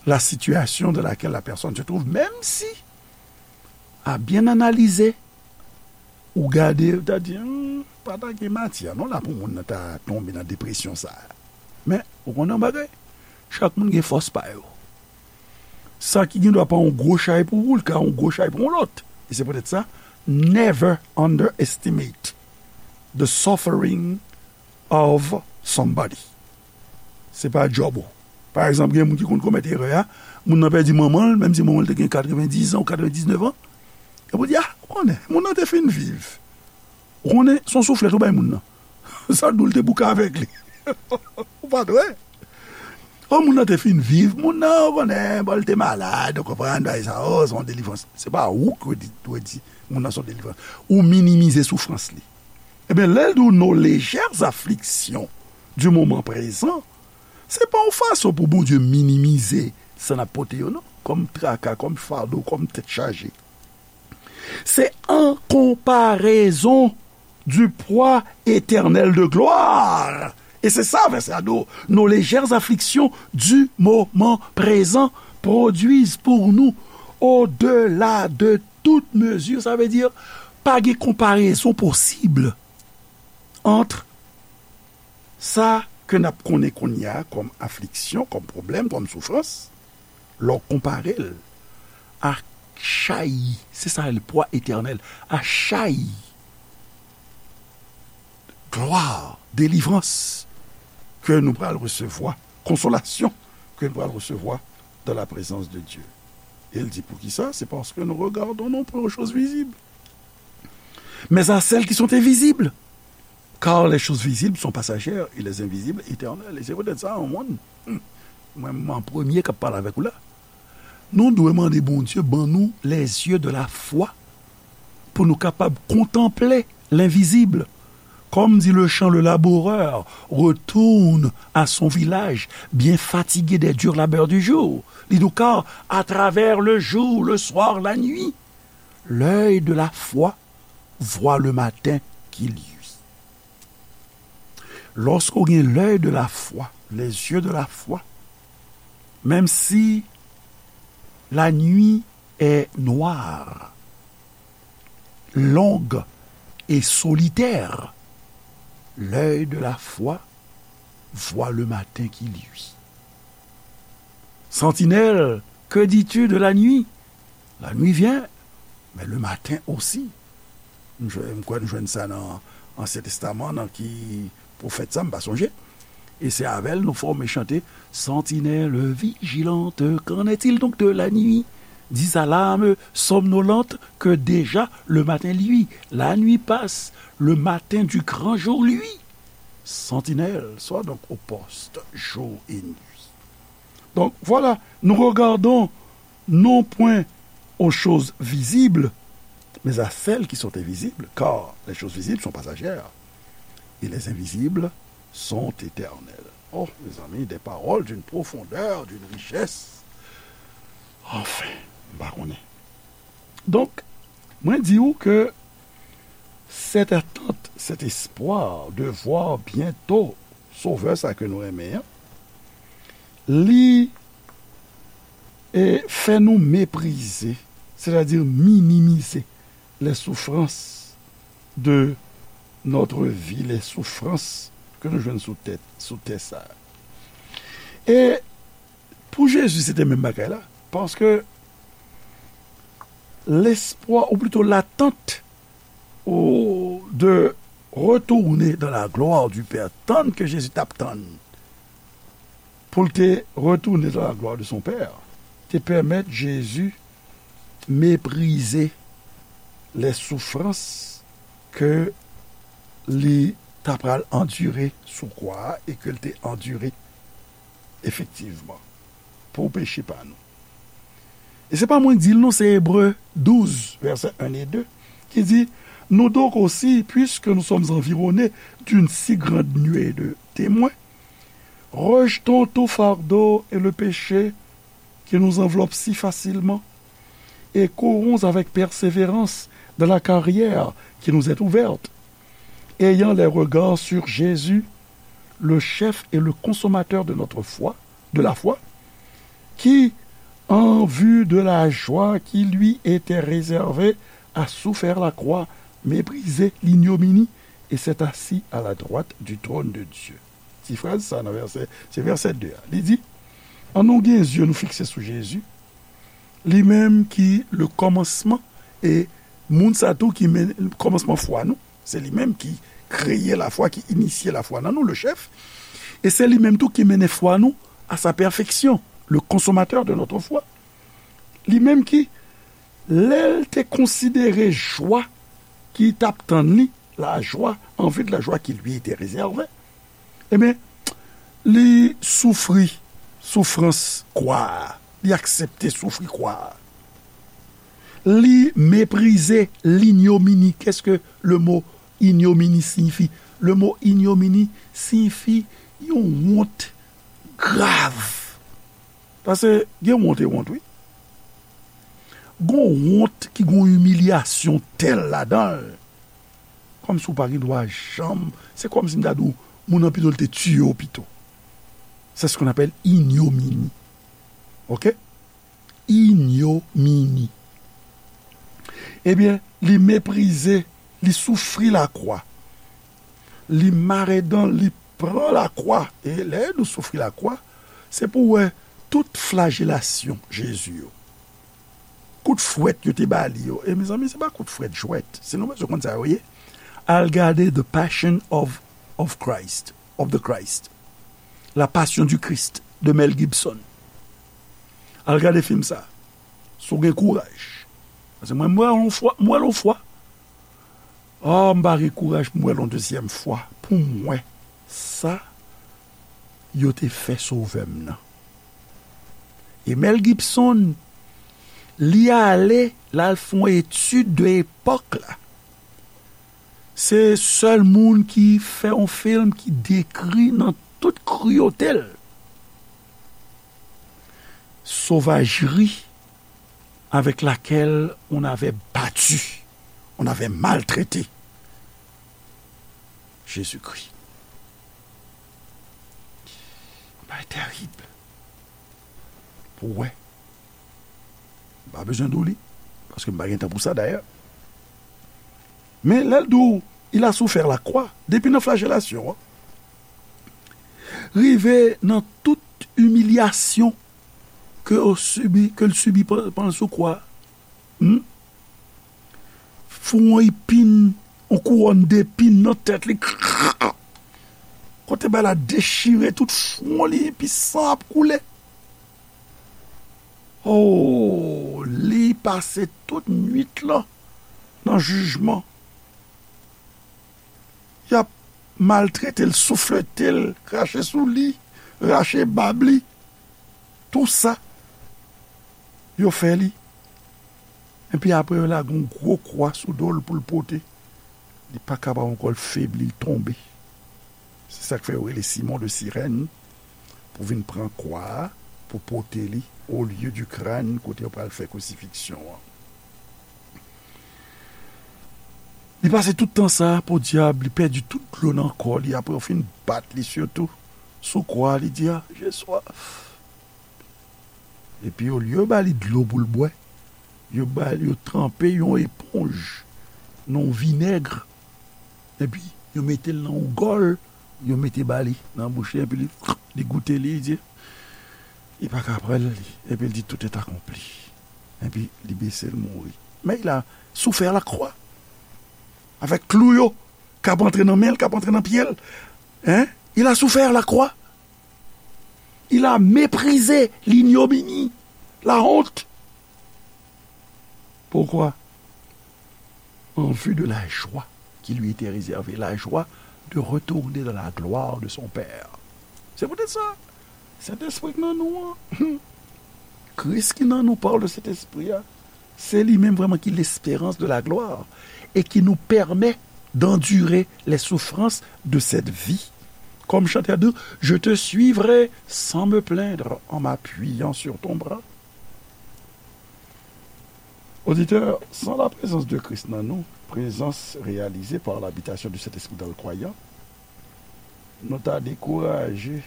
la situation dans laquelle la personne se trouve, même si, à bien analyser, ou gade, ou ta di, hmm, pa ta gen matyè non la pou moun nan ta tonbe nan depresyon sa a. Men, ou konnen yon bagay, chak moun gen fòs pa yo. Sa ki gen dwa pa yon gwo chay pou ou, li ka yon gwo chay pou yon lòt. E se poutèt sa, never underestimate the suffering of somebody. Se pa djòb ou. Pa egzanp, gen moun ki konn komèt erè a, moun nan pèdi manman l, menm si manman l te gen katrevendiz an ou katrevendiznèf an. Epi ou di, a, ou konnen, moun nan te fin viv. Ou konnen, se yon souflèt ou bay moun nan. Sa dou l te bouke avèk li. Ou pa t wè? O, moun nan te fin viv, moun nan, ou konnen, bon, li te malad, ou konprann, bagay sa, o, se yon delivrans. Se pa ou ki dwe di, dwe di, moun nan se yon delivrans. Ou minimize soufrans li. Ebyen, lè l di w nos légères afflictions du moment présent, se pa yon fason pou Bondye minimize sa n ap pote yo, non, kòm traka, kòm fado, kòm tèt chaje. C'est en comparaison du poids éternel de gloire. E se sa vèsè a di w, nos légères afflictions du moment présent produisent pour nous, au-delà de toute mesure. Sa vle di, pa gen konparezon posib ant sa ke n ap konnen kounye a kòm afliksyon, kòm pwoblèm, kòm soufrans, lè w konpare l a chay, se sa le poids éternel, a chay, glwa, delivrans ke nou pral resevwa, konsolasyon ke nou pral resevwa dans la présence de Dieu. E l di, poukisa? C'est parce que nous regardons non point aux choses visibles, mais à celles qui sont invisibles. Car les choses visibles sont passagères et les invisibles éternelles. E se poutèt sa, yon moun, hmm, mwen, mwen premye k ap pale avèk ou la. Nou dwe mande Bondye ban nou les yeux de la foi pou nou kapab kontanple lenvizib. Comme dit le chant, le laboureur retourne à son village, bien fatigué des durs labeurs du jour. Li di w, car à travers le jour, le soir, la nuit, l'œil de la foi voit le matin qui luit. Lòske w gen l'œil de la foi, les yeux de la foi, menm si la nuit est noire, longue et solitaire, l'œil de la foi voit le matin qui luit. Sentinelle, que dis-tu de la nuit? La nuit vient, mais le matin aussi. M jwe-, m kwè n jwenn sa nan Ansyen Testaman, nan ki pwofèt sa, m pa sonje. E se avè l nou fòme chante, Sentinelle vigilante, qu'en est-il donc de la nuit? Dix alarmes somnolentes que déjà le matin luit. La nuit passe, le matin du grand jour luit. Sentinelle, sois donc au poste, jour et nuit. Donc voilà, nous regardons non point aux choses visibles, mais à celles qui sont invisibles, car les choses visibles sont passagères, et les invisibles sont éternelles. Oh, mes amis, des paroles d'une profondeur, d'une richesse. Enfin, m pa konnen. Donk, mwen di w ke cette attente, cet espoir de voir bientôt Sovè sa ke nou renmen an, li e, fè nou meprize, sètadi minimize les souffrances de notre vie, les souffrances ke nou jwenn sou tè, sou tè sa. E pou Jezi, se te menm bagay la, paske lespwa, ou plito latant, ou de retourner dans la gloire du Père, tann ke Jezi t ap tann pou l te retourner dans la gloire de son Père, te pèmèt Jezi mépriser les souffrances ke li ta pral andire sou kwa a e ke l te andire efektivman pou peche pa nou. E se pa mwen k di l non, se Ebre douz, vèsè en e de, ki di, Nous donc aussi, puisque nous sommes environnés d'une si grande nuée de témoins, rejetons tout fardeau et le péché qui nous enveloppe si facilement, et courons avec persévérance dans la carrière qui nous est ouverte, ayant les regards sur Jésus, le chef et le consommateur de notre foi, de la foi, qui, en vue de la joie qui lui était réservée, a souffert la croix, méprisé l'ignominie, et s'est assis à la droite du trône de Dieu. Ti fraz sa nan vèsè, se vèsè de a. Li di, Annou gen zye nou fikse sou Jezi, li menm ki le kòmansman, e moun sa tou ki men kòmansman fwa nou, se li menm ki kreye lafwa, ki inisye lafwa nan nou, le chef, e se li menm tou ki mennen fwa nou à sa perfection, le consommateur de notre foi. Li menm ki, lè l te konsidere jwa ki t ap tann li, la joie, en vue de la joie qui lui était réservée, ebyen, li soufri soufrans kwa a. Li aksepte soufri kwa a. Li meprize linyomini. Qu'est-ce que le mot ignominie signifie? Le mot ignominie signifie yon wont grav. Paske gen wont e wont, wi. Gon wont ki gon imilyasyon tèl ladan l. Kòmsi w pa gen dwa janm. Se kòmsi m ta di w, moun nan pito l te tiye w pito. C'est ce qu'on appelle ignominie. Oke? Ignominie. Ebyen, li meprize, li soufri lakwa. Li mare dan, li pran lakwa. E lè nou soufri lakwa, se pou w wè tout flajelasyon Jezi yo. Kout fwèt yo te ba li yo. E mezanmi, se pa kout fwèt jwèt. Si nou bezwen konn sa yo ye, al gade The Passion of, of Christ, of the Christ. La Passion du Christ, de Mel Gibson. Al gade fim sa. Si w gen kouraj. Paske mwen, m wè l yon fwa, m wè l yon fwa. Ah, m pa gen kouraj pou m wè l yon dezyèm fwa. Pou m wè sa yo te fè Sovè m nan. E Mel Gibson, li ale, l al fè yon etid de epòk la. Se sèl moun ki fè yon fim ki dekri nan tout kriyote l sovajri avec laquelle on avait battu, on avait maltraité Jésus-Christ. Bagay terib. Pou wè. M pa bezwen di w li, paske m pa gen tan pou sa dayè. Men lè l di w, il a souffert la croix, depi nan flajelasyon an, rive nan tout imilyasyon ke w sibi, ke l sibi pandan l sou kwa. Hmm? Fè yon epin, yon kouwòn depin nan tèt li. Kote bagay la dechire tout fwon li, epi san ap koule. Oh, li pase tout nwit lan nan jijman. Y ap maltrete l, souflete l, krache sou li, rache bab li. Tou sa, yo fè li. Epi apre, yo lage yon gwo kwa sou do l pou l pote. Li pa kapab ankò, l febli, l tonbe. Se sa k fè yo rele Simon de Sirèn pou vin pran kwa a, pou pote li au lieu du crâne, kote yo pral fè krisifiksyon an. Li pase tout tan sa, podyab, li pèdi tout dlo nan kò li, apre yo fin bat li sitou sou kwa, li di, "Ah, j'ai soif." Epi olye yo ba li dlo pou l bwè, yo ba, yo tranpe yon eponj nan yon vinèg, epi yo mete l nan yon gòl, yo mete ba li nan bouch li, epi li, li goute li, li di, li pa ka pran l, li, epi l di, "Tout est accompli." Epi li bese, l mouri. Men il a souffert la croix. Avèk klou yo k ap antre nan men l, k ap antre nan pye l. Hein? Il a souffert la croix. Il a méprisé l'ignominie, la honte. Pourquoi? En vue de la joie qui lui était réservée, la joie de retourner dans la gloire de son Père. Se poutèt sa, Sentespri k nan nou an, Kris ki nan nou par le Saint-Esprit a, se li menm vrèman ki l'espérance de la gloire et qui nous permet d'endurer les souffrances de cette vie. Comme chantait à dire, je te suivrai sans me plaindre en m'appuyant sur ton bras. Auditeur, sans la présence de Christ dans nous, présence réalisée par l'habitation du Saint-Esprit dans le croyant, nou ta dekouraje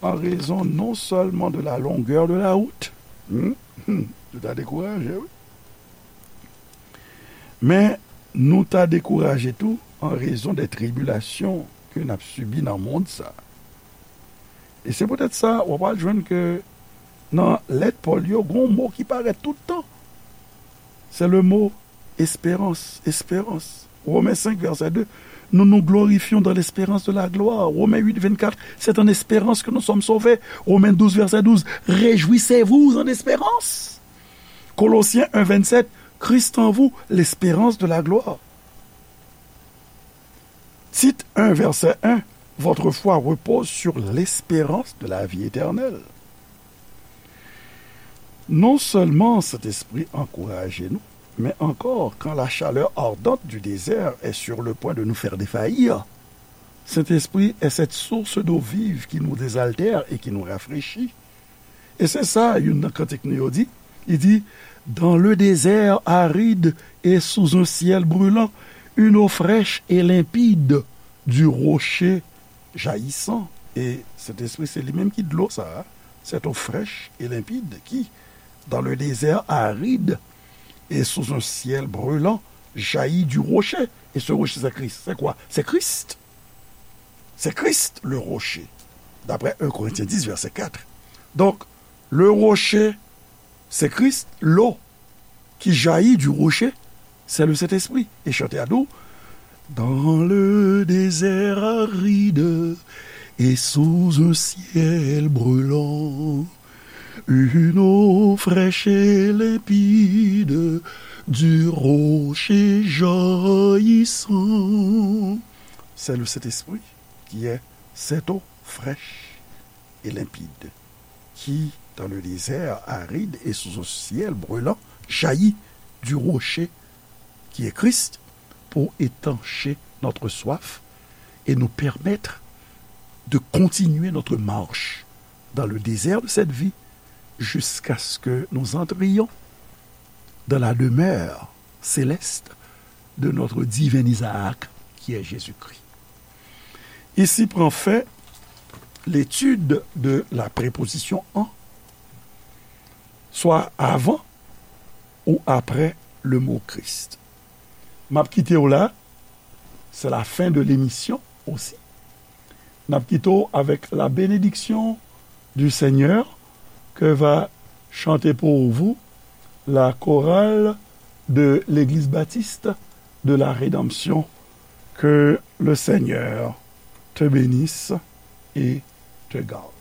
en raison non seulement de la longueur de la route, hmm, hmm, nou ta dekouraje, wi. Men nou ta dekouraje tou en raison des tribulations ke n ap sibi nan mond sa. E se poutèt sa, w ap al jwenn ke nan lèt Pòl yo, gon mo ki parèt tout tan. Se le mo esperans, esperans. Romains cinq, verset deux. Nous nous glorifions dans l'espérance de la gloire. Romains huit, vingt-quatre. C'est en espérance que nous sommes sauvés. Romains douze, verset douze. Réjouissez-vous en espérance. Colossiens un, vingt-sept. Christ en vous, l'espérance de la gloire. Tite un, verset un, votre foi repose sur l'espérance de la vie éternelle. Non seulement Saint-Esprit encourage nous, mais encore, quand la chaleur ardente du désert est sur le point de nous faire défaillir, Saint-Esprit est cette source d'eau vive qui nous désaltère et qui nous rafraîchit. E se sa youn nan kantik nou yo di. Li di, dans le désert aride et sous un ciel brûlant, une eau fraîche et limpide du rocher jaillissant. E Sentespri, se li menm ki dlo sa a, cette eau fraîche et limpide qui, dans le désert aride et sous un ciel brûlant, jaillit du rocher. Et ce rocher, c'est Christ. C'est quoi? C'est Christ. C'est Christ le rocher. D'après un Corinthiens dix, verset quatre. Donc, le rocher, c'est Christ. L'eau qui jaillit du rocher, c'est le Saint-Esprit. Et chanter à nous, dans le désert aride et sous un ciel brûlant, une eau fraîche et limpide du rocher jaillissant. C'est le Saint-Esprit qui est cette eau fraîche et limpide, qui, dans le désert aride et sous un ciel brûlant, jaillit du rocher qui est Christ pour étancher notre soif et nous permettre de continuer notre marche dans le désert de cette vie jusqu'à ce que nous entrions dans la demeure céleste de notre divin Isaac, qui est Jésus-Christ. Ici prend fin l'étude de la préposition en, soit avant ou après le mot Christ. M ap kite w la, c'est la fin de l'émission aussi. N ap kite w avec la bénédiction du Seigneur que va chanter pour vous la chorale de l'Église baptiste de la Rédemption. Que le Seigneur te bénisse et te garde.